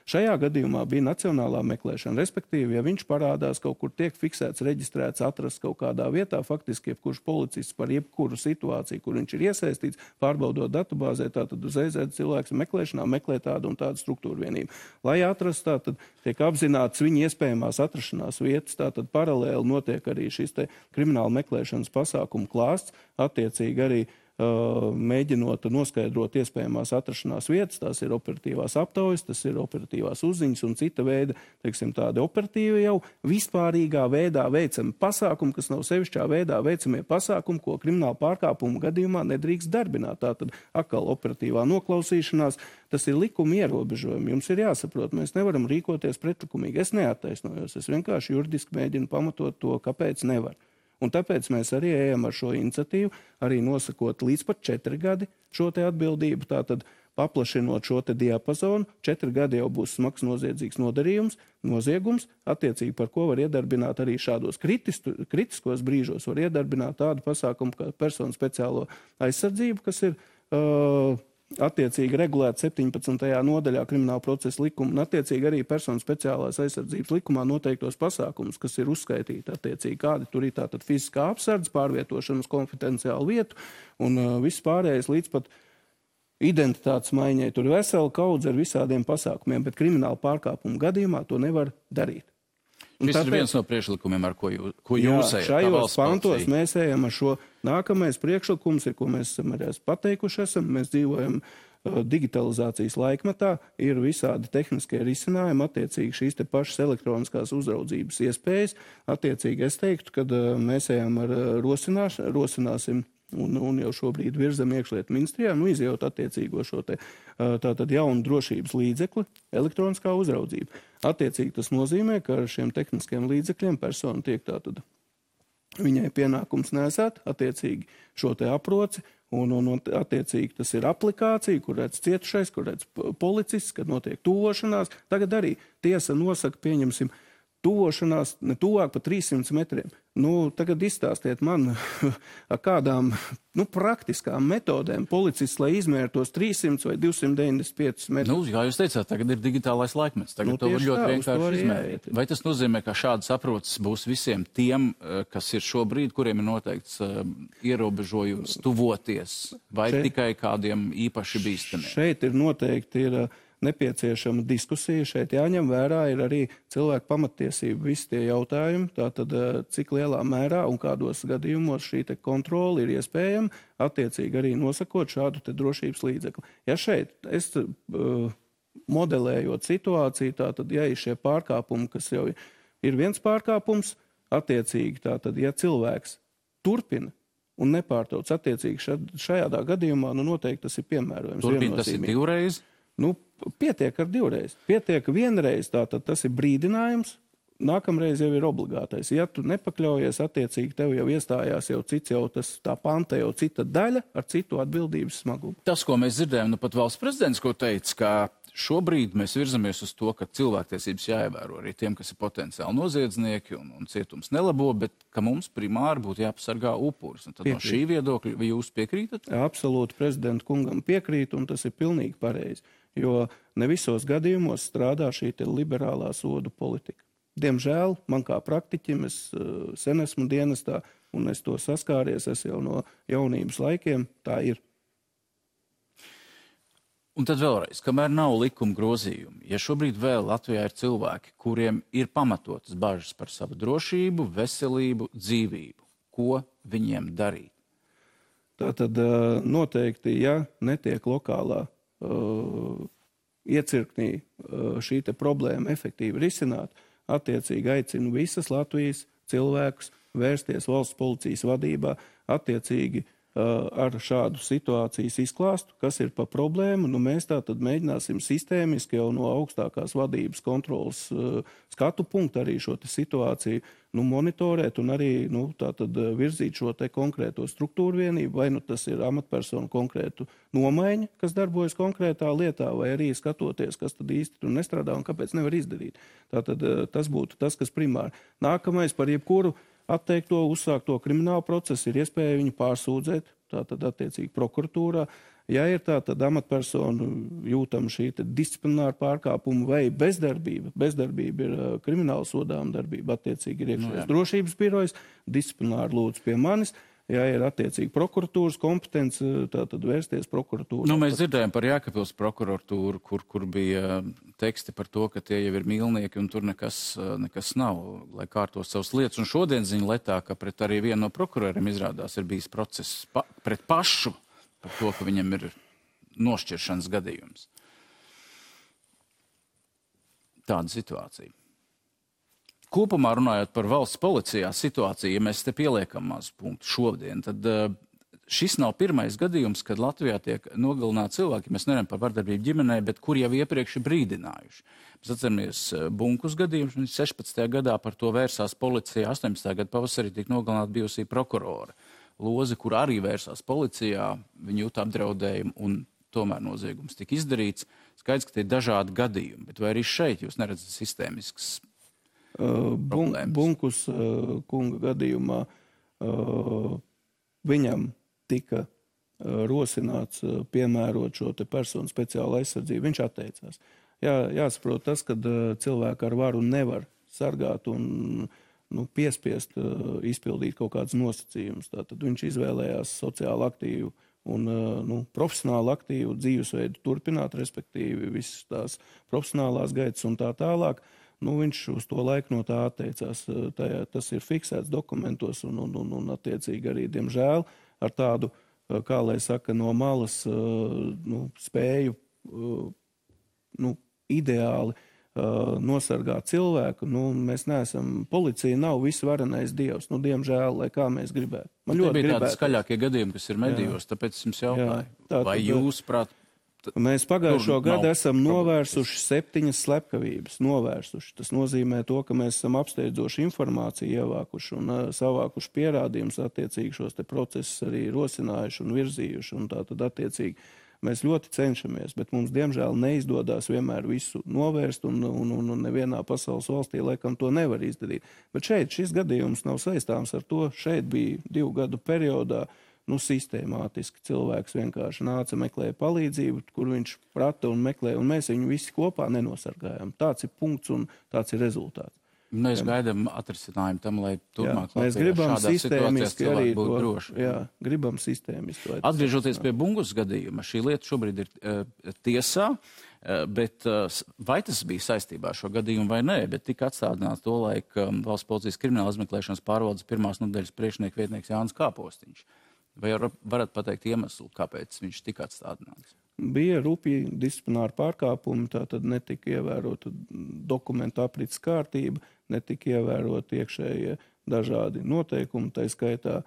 šajā gadījumā bija nacionālā meklēšana, respektīvi, ja viņš parādās kaut kur tiek fiksēts, reģistrēts, atrasts kaut kādā vietā, faktiski jebkurš policists par jebkuru situāciju, kur viņš ir iesaistīts, pārbaudot datubāzē, tātad uzreiz cilvēks meklēšanā meklē tādu un tādu struktūru vienību. Lai atrastu, tātad tiek apzināts viņa iespējamās atrašanās vietas, tātad paralēli notiek arī šis te krimināla meklēšanas pasākumu klāsts, attiecīgi arī mēģinot noskaidrot iespējamās atrašanās vietas, tās ir operatīvās aptaujas, tas ir operatīvās uzziņas un cita veida, teiksim, tādi operatīvi jau vispārīgā veidā veicami pasākumi, kas nav sevišķā veidā veicamie pasākumi, ko krimināla pārkāpuma gadījumā nedrīkst darbināt. Tātad atkal operatīvā noklausīšanās, tas ir likuma ierobežojumi. Jums ir jāsaprot, mēs nevaram rīkoties pretlikumīgi. Es neattaisnojos, es vienkārši juridiski mēģinu pamatot to, kāpēc nevar. Un tāpēc mēs arī ejam ar šo iniciatīvu, arī nosakot līdz pat 4 gadi šo te atbildību, tātad paplašinot šo te diapazonu. 4 gadi jau būs smags noziedzīgs nodarījums, noziegums, attiecīgi par ko var iedarbināt arī šādos kritiskos brīžos, var iedarbināt tādu pasākumu kā personu speciālo aizsardzību, kas ir attiecīgi regulēta 17. nodaļā krimināla procesa likuma un attiecīgi arī personu speciālās aizsardzības likumā noteiktos pasākumus, kas ir uzskaitīti attiecīgi, kādi tur ir tātad fiziskā apsardze, pārvietošana uz konfidenciālu vietu un viss pārējais līdz pat identitātes maiņai. Tur ir vesela kaudze ar visādiem pasākumiem, bet krimināla pārkāpuma gadījumā to nevar darīt. Šis ir viens no priekšlikumiem, ar ko jūs ejat. Šajos pantos mēs ejam ar šo nākamais priekšlikums, ko mēs esam arī pateikuši esam. Mēs dzīvojam digitalizācijas laikmetā, ir visādi tehniskie risinājumi, attiecīgi šīs te pašas elektroniskās uzraudzības iespējas. Attiecīgi es teiktu, kad mēs ejam ar rosināsim un jau šobrīd virzam iekšlietu ministrijā, izjūt attiecīgo šo te tātad jaunu drošības līdzekli, elektroniskā uzraudzība. Attiecīgi tas nozīmē, ka ar šiem tehniskiem līdzekļiem persona tiek tātad viņai pienākums nesēt, attiecīgi šo te aproci, un attiecīgi tas ir aplikācija, kur redz cietušais, kur redz policists, kad notiek tuvošanās. Tagad arī tiesa nosaka, pieņemsim, tuvošanās ne tuvāk pa 300 metriem. Tagad izstāstiet man, ar kādām praktiskām metodēm policists, lai izmērtos 300 vai 295 metrus. Jā, jūs teicāt, tagad ir digitālais laikmets. Tagad to var ļoti vienkārši izmērīt. Vai tas nozīmē, ka šādas aproces būs visiem tiem, kas ir šobrīd, kuriem ir noteikts ierobežojums tuvoties, vai tikai kādiem īpaši bīstamiem? Šeit ir noteikti nepieciešama diskusija. Šeit jāņem vērā ir arī cilvēku pamattiesību visi tie jautājumi, tātad cik lielā mērā un kādos gadījumos šī te kontrola ir iespējama, attiecīgi arī nosakot šādu te drošības līdzekli. Ja šeit es modelējot situāciju, tātad ja ir šie pārkāpumi, kas jau ir viens pārkāpums, attiecīgi tātad, ja cilvēks turpina un nepārtrauc, attiecīgi šajā gadījumā, noteikti tas ir piemērojams. Turpina tas ir divreiz? Nu, pietiek ar 2 reizes. Pietiek 1 reize, tātad tas ir brīdinājums, nākamreiz jau ir obligātais. Ja tu nepakļaujies, attiecīgi tev jau iestājās jau cits, jau tas tā panta jau cita daļa ar citu atbildības smagumu. Tas, ko mēs dzirdējam, nu pat valsts prezidents, ko teica, ka šobrīd mēs virzamies uz to, ka cilvēktiesības jāievēro arī tiem, kas ir potenciāli noziedznieki un cietums nelabo, bet ka mums primāri būtu jāpasargā upuris. Un tad no šī viedokļa, vai jūs piekrītat? Absolūti prezidenta kungam piekrīt, un tas ir pilnīgi pareizi, jo ne visos gadījumos strādā šī liberālā sodu politika. Diemžēl man kā praktiķim, es sen esmu dienestā, un es to saskāries, es jau no jaunības laikiem, tā ir. Un tad vēlreiz, kamēr nav likuma grozījumi, ja šobrīd vēl Latvijā ir cilvēki, kuriem ir pamatotas bažas par savu drošību, veselību, dzīvību, ko viņiem darīt? Tātad noteikti, ja netiek lokālā iecirknī šī te problēma efektīvi risināt, attiecīgi aicinu visas Latvijas cilvēkus vērsties valsts policijas vadībā, attiecīgi ar šādu situācijas izklāstu, kas ir pa problēmu. Nu, mēs tātad mēģināsim sistēmiski jau no augstākās vadības kontrolas skatu punktu arī šo situāciju monitorēt un arī tātad virzīt šo te konkrēto struktūru vienību, vai tas ir amatpersonu konkrētu nomaiņa, kas darbojas konkrētā lietā, vai arī skatoties, kas tad īsti tur nestrādā un kāpēc nevar izdarīt. Tātad tas būtu tas, kas primāri. Nākamais par jebkuru atteikto, uzsākto kriminālu procesu ir iespēja viņu pārsūdzēt, tātad attiecīgi prokuratūrā. Ja ir tātad amatpersonu jūtama šī disciplināra pārkāpuma vai bezdarbība ir krimināla sodāma darbība, attiecīgi ir iekšējās drošības birojas, disciplināri lūdzu pie manis. Ja ir attiecīgi prokuratūras kompetence, tātad vērsties prokuratūrā. Nu, mēs dzirdējām par Jēkabpils prokuratūru, kur bija teksti par to, ka tie jau ir mīlnieki un tur nekas nav, lai kārtos savas lietas. Un šodien ziņa letā, ka pret arī vienu no prokuroriem izrādās ir bijis process pret pašu par to, ka viņam ir nošķiršanas gadījums. Tāda situācija. Kopumā runājot par valsts policijā situāciju, ja mēs te pieliekam mazu punktu šodien, tad šis nav pirmais gadījums, kad Latvijā tiek nogalināti cilvēki, mēs nerunājam par vardarbību ģimenē, bet kur jau iepriekš ir brīdinājuši. Mēs atceramies Bunkus gadījumus, 16. gadā par to vērsās policijā, 18. gada pavasarī tika nogalināta bijusī prokurora Loze, kur arī vērsās policijā, viņa jūta apdraudējumu un tomēr noziegums tika izdarīts. Skaidrs, ka tie ir dažādi gadījumi, bet vai arī šeit jūs neredzat sistēmisks Bunkus kunga gadījumā viņam tika rosināts piemērot šo te personu speciālu aizsardzību. Viņš atteicās. Jāsaprot tas, ka cilvēku ar varu nevar sargāt un piespiest izpildīt kaut kādus nosacījumus. Tātad viņš izvēlējās sociāli aktīvu un profesionāli aktīvu dzīvesveidu turpināt, respektīvi visas tās profesionālās gaitas un tā tālāk. Viņš uz to laiku no tā atteicās. Tas ir fiksēts dokumentos un attiecīgi arī, diemžēl, ar tādu, kā lai saka, no malas spēju ideāli nosargāt cilvēku. Mēs neesam, policija nav visvarenais dievs. Diemžēl, lai kā mēs gribētu. Man ļoti bija tādi skaļākie gadījumi, kas ir medijos, tāpēc jums jautāju. Vai jūs, prāt, mēs pagājušo gadu esam novērsuši 7 slepkavības. Tas nozīmē to, ka mēs esam apsteidzoši informāciju ievākuši un savākuši pierādījumus, attiecīgi šos te procesus arī rosinājuši un virzījuši. Un tātad attiecīgi mēs ļoti cenšamies, bet mums diemžēl neizdodas vienmēr visu novērst un nevienā pasaules valstī laikam to nevar izdarīt. Bet šeit šis gadījums nav saistāms ar to. Šeit bija 2 gadu periodā sistēmātiski cilvēks vienkārši nāca, meklēja palīdzību, kur viņš prata un meklēja, un mēs viņu visi kopā nenosargājām. Tāds ir punkts un tāds ir rezultāts. Mēs gaidām atrisinājumu tam, lai turpmāk mēs gribam sistēmiski arī būt droši. Gribam sistēmiski. Atgriežoties pie Bungus gadījuma, šī lieta šobrīd ir tiesā, bet vai tas bija saistībā ar šo gadījumu vai nē, bet tika atstādināts to laika valsts policijas krimināla izmeklēšanas pārvaldes pirmās nodaļas priekšnieka vietnieks Jānis Kāpostiņš. Vai varat pateikt iemeslu, kāpēc viņš tika atstādināts? Bija rupji disciplināri pārkāpumi, tātad netika ievērota dokumentu aprits kārtība, netika ievērot iekšējie dažādi noteikumi, tā skaitā,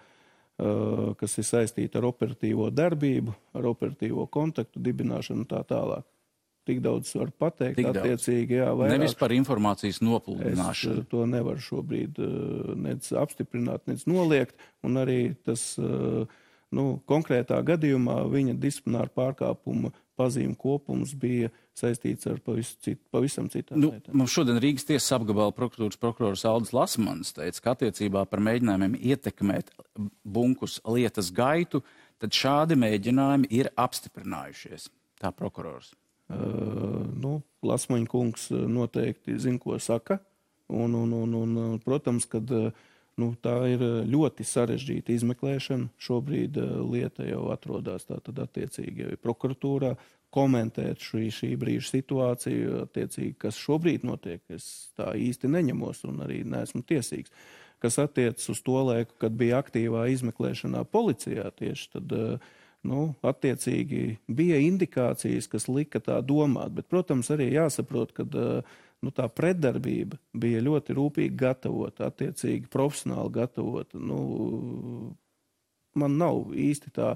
kas ir saistīti ar operatīvo darbību, ar operatīvo kontaktu dibināšanu un tā tālāk. tik daudz var pateikt. Attiecīgi, jā, vairāk. Nevis par informācijas nopludināšanu. Es to nevaru šobrīd nec apstiprināt, nec noliegt, un arī tas konkrētā gadījumā viņa disciplināra pārkāpuma pazīme kopums bija saistīts ar pavisam citām lietām. Mums šodien Rīgas tiesas apgabala prokuratūras prokurors Aldis Lasmans teica, ka attiecībā par mēģinājumiem ietekmēt Bunkus lietas gaitu, tad šādi mēģinājumi ir apstiprinājušies. Tā prokurors. Lasmaņa kungs noteikti zina, ko saka, un protams, kad tā ir ļoti sarežģīta izmeklēšana. Šobrīd lieta jau atrodas tātad attiecīgi jau prokuratūrā. Komentēt šī brīža situāciju, attiecīgi, kas šobrīd notiek, es tā īsti neņemos un arī neesmu tiesīgs. Kas attiecas uz to laiku, kad bija aktīvā izmeklēšanā policijā tieši, tad attiecīgi bija indikācijas, kas lika tā domāt, bet, protams, arī jāsaprot, ka tā pretdarbība bija ļoti rūpīgi gatavota, attiecīgi profesionāli gatavota. Man nav īsti tā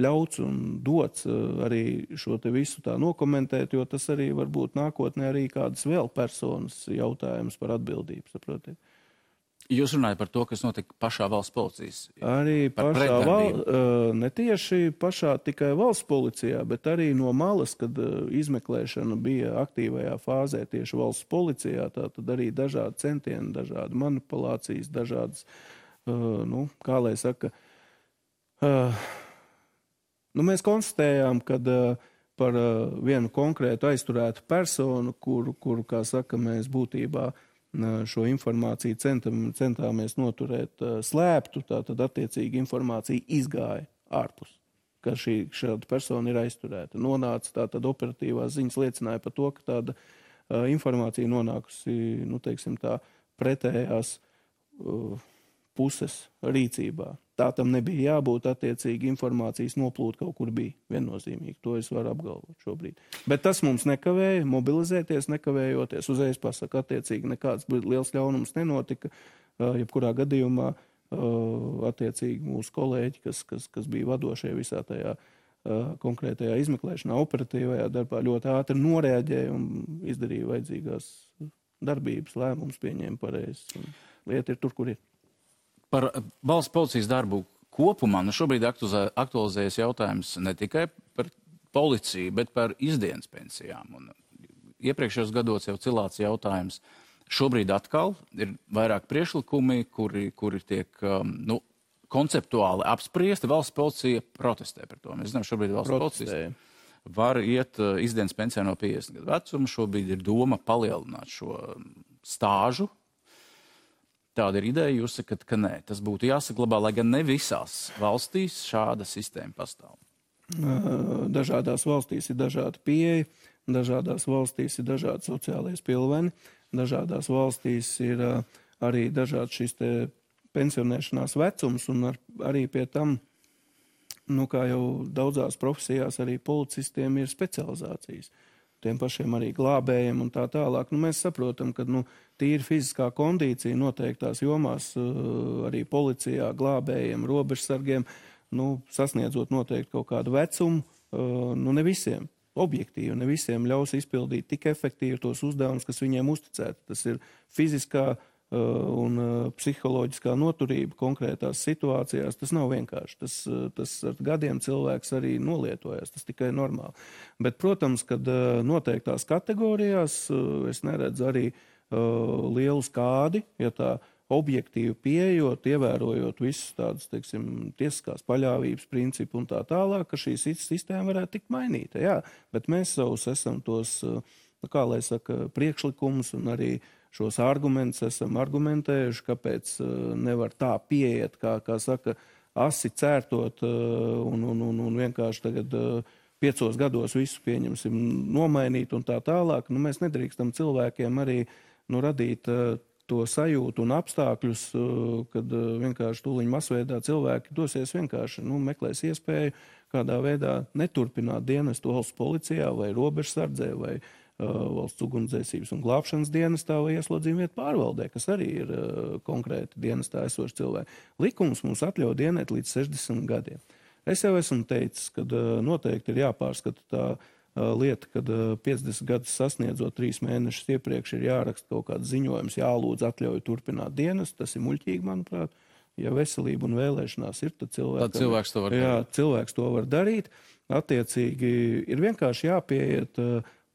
ļauts un dots arī šo te visu tā nokomentēt, jo tas arī varbūt nākotnē arī kādas vēl personas jautājums par atbildību, saprotiet. Jūs runājat par to, kas notika pašā valsts policijas? Arī ne tieši pašā tikai valsts policijā, bet arī no malas, kad izmeklēšana bija aktīvajā fāzē tieši valsts policijā, tad arī dažādi centieni, dažādi manipulācijas, dažādas, kā lai saka, mēs konstatējām, kad par vienu konkrētu aizturētu personu, kuru, kā saka, mēs būtībā šo informāciju centāmies noturēt slēptu, tātad attiecīgi informācija izgāja ārpus, ka šāda persona ir aizturēta. Nonāca tātad operatīvās ziņas liecināja par to, ka tāda informācija nonākusi, pretējās puses rīcībā. Tā tam nebija jābūt, attiecīgi informācijas noplūde kaut kur bija viennozīmīgi. To es varu apgalvot šobrīd. Bet tas mums nekavēja mobilizēties, nekavējoties. Uzreiz pasaka, attiecīgi nekāds liels ļaunums nenotika. Jebkurā gadījumā, attiecīgi mūsu kolēģi, kas bija vadošie visā tajā konkrētajā izmeklēšanā, operatīvajā darbā, ļoti ātri noreaģēja un izdarīja vajadzīgās darbības, lēmumus pieņēma pareizi. Lieta ir tur, kur ir. Par valsts policijas darbu kopumā šobrīd aktualizējas jautājums ne tikai par policiju, bet par izdienas pensijām. Un iepriekšējos gados jau cilāts jautājums. Šobrīd atkal ir vairāk priekšlikumi, kuri tiek konceptuāli apspriesti. Valsts policija protestē par to. Mēs zinām, šobrīd valsts policija var iet izdienas pensijā no 50 gadu vecuma. Šobrīd ir doma palielināt šo stāžu. Tāda ir ideja, jūs sakat, ka nē, tas būtu jāsaglabā, lai gan ne visās valstīs šāda sistēma pastāv. Dažādās valstīs ir dažāda pieeja, dažādās valstīs ir dažādi sociālais pilveni, dažādās valstīs ir arī dažādi šis te pensionēšanās vecums, un arī pie tam, kā jau daudzās profesijās, arī policistiem ir specializācijas. Tiem pašiem arī glābējiem un tā tālāk. Mēs saprotam, ka tīri fiziskā kondīcija noteiktās jomās arī policijā, glābējiem, robežsargiem, sasniedzot noteikti kaut kādu vecumu, ne visiem, objektīvi, ne visiem ļaus izpildīt tik efektīvi tos uzdevumus, kas viņiem uzticēti. Tas ir fiziskā un psiholoģiskā noturība konkrētās situācijās. Tas nav vienkārši. Tas ar gadiem cilvēks arī nolietojas. Tas tikai normāli. Bet, protams, kad noteiktās kategorijās es neredzu arī lielu skādi, ja tā objektīvi pieejot, ievērojot visus tādus, tiesiskās paļāvības principu un tā tālāk, ka šī sistēma varētu tikt mainīta. Jā, bet mēs savus esam tos, kā lai saka, priekšlikumus un arī šos argumentus esam argumentējuši, kāpēc nevar tā pieiet, kā saka, asi cērtot un vienkārši tagad 5 gados visu pieņemsim nomainīt un tā tālāk. Mēs nedrīkstam cilvēkiem arī radīt to sajūtu un apstākļus, kad vienkārši tūliņ masveidā cilvēki dosies vienkārši, meklēs iespēju kādā veidā neturpināt dienestu valsts policijā vai robežsardzē vai valsts ugunsdzēsības un glābšanas dienestā vai ieslodzījuma vietu pārvaldē, kas arī ir konkrēti dienestā esoši cilvēki. Likums mums atļauj dienēt līdz 60 gadiem. Es jau esmu teicis, ka noteikti ir jāpārskata tā lieta, kad 50 gadus sasniedzot 3 mēnešus iepriekš ir jāraksta kaut kāds ziņojums, jālūdz atļauju turpināt dienas, tas ir muļķīgi, manuprāt. Ja veselība un vēlēšanās ir, tad cilvēks to var darīt. Cilvēks to var darīt. Attiecīgi ir vienkārši jāpieiet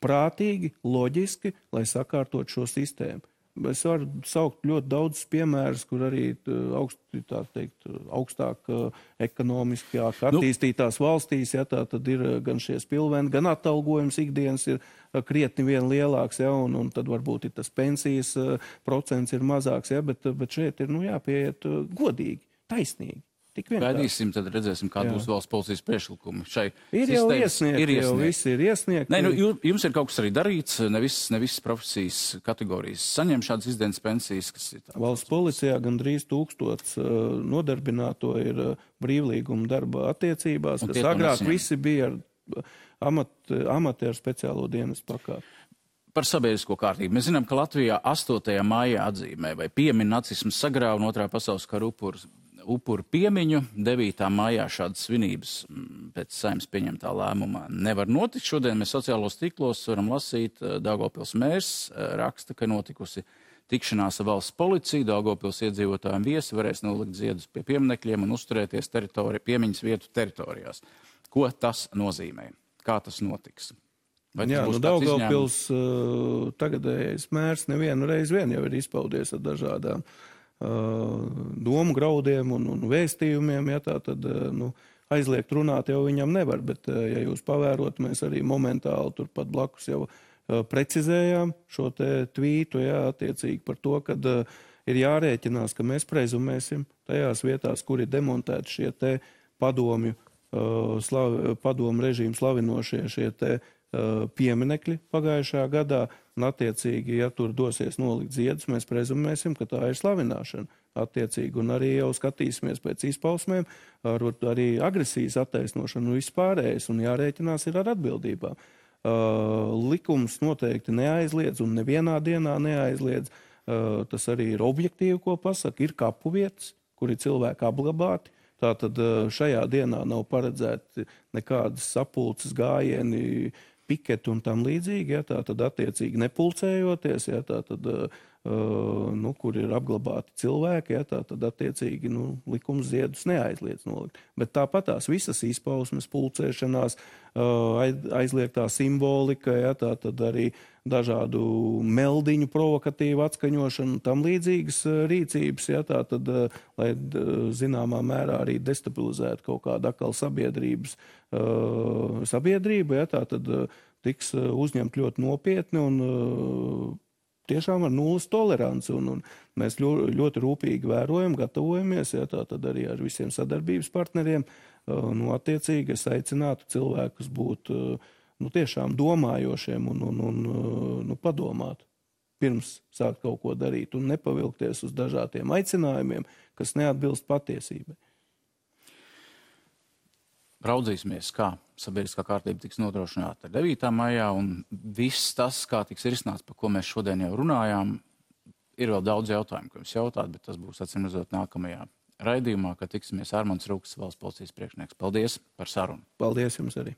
prātīgi, loģiski, lai sakārtot šo sistēmu. Es varu saukt ļoti daudz piemērus, kur arī augstāk ekonomiskāk attīstītās valstīs, ja, tā tad ir gan šie spilveni, gan atalgojums ikdienas ir krietni vien lielāks, ja, un tad varbūt ir tas pensijas procents ir mazāks, ja, bet šeit ir jāpieiet godīgi, taisnīgi. Gaidīsim, tad redzēsim, kāda būs valsts policijas priekšlikumi. Ir jau iesniegti, jau visi ir iesniegti. Nē, jums ir kaut kas arī darīts, ne visas profesijas kategorijas saņem šādas izdienas pensijas, kas ir tā. Valsts policijā gandrīz 1000 nodarbināto ir brīvlīguma darba attiecībās, kas agrāk visi bija ar amatieru speciālo dienas pakāpi. Par sabiedrisko kārtību. Mēs zinām, ka Latvijā 8. maijā atzīmē vai piemin nacismu sagrāvu un 2. pasaules kara upuru piemiņu. 9. maijā šādas svinības pēc Saeimas pieņemtā lēmuma nevar notikt. Šodien mēs sociālos tīklos varam lasīt, Daugavpils mērs raksta, ka notikusi tikšanās ar valsts policiju. Daugavpils iedzīvotājiem viesi varēs nolikt ziedus pie pieminekļiem un uzturēties piemiņas vietu teritorijās. Ko tas nozīmē? Kā tas notiks? Daugavpils tagadējais mērs nevienu reizi vien jau ir izpaudies ar dažādām domu graudiem un vēstījumiem, ja tā tad aizliegt runāt jau viņam nevar, bet ja jūs pavērot, mēs arī momentāli turpat blakus jau precizējām šo te tvītu, ja, attiecīgi par to, kad ir jārēķinās, ka mēs prezumēsim tajās vietās, kur ir demontēti šie te padomu režīmu slavinošie šie te pieminekļi pagājušajā gadā, un attiecīgi, ja tur dosies nolikt ziedus, mēs prezumēsim, ka tā ir slavināšana attiecīgi, un arī jau skatīsimies pēc izpausmēm, arī agresijas attaisnošanu un vispārējais, un jārēķinās ir ar atbildībām. Likums noteikti neaizliedz, un nevienā dienā neaizliedz, tas arī ir objektīvi, ko pasaka, ir kapu vietas, kur ir cilvēki apglabāti. Tātad šajā dienā nav paredzēti nekādas sapulces gājieni, piketi un tam līdzīgi, ja, tātad attiecīgi nepulcējoties, ja, tātad, kur ir apglabāti cilvēki, ja, tātad attiecīgi likums ziedus neaizliedz nolikt. Bet tāpat tās visas izpausmes, pulcēšanās, aizliegtā simbolika, ja, tātad arī dažādu meldiņu provokatīvu atskaņošanu, tam līdzīgas rīcības, ja, tātad, lai zināmā mērā arī destabilizētu kaut kādu atkal sabiedrību, ja, tātad tiks uzņemt ļoti nopietni un tiešām ar nulles toleranci. Un mēs ļoti rūpīgi vērojam, gatavojamies, ja, tātad arī ar visiem sadarbības partneriem. Attiecīgi es aicinātu cilvēkus būt tiešām domājošiem un padomāt pirms sākt kaut ko darīt un nepavilkties uz dažādiem aicinājumiem, kas neatbilst patiesībai. Raudzīsimies, kā sabiedriskā kārtība tiks nodrošināta 9. maijā, un viss tas, kā tiks risināts, par ko mēs šodien jau runājām, ir vēl daudz jautājumu, ko jums jautāt, bet tas būs atsimredzot nākamajā raidījumā, kad tiksimies Armands Rūks, valsts policijas priekšnieks. Paldies par sarunu. Paldies jums arī.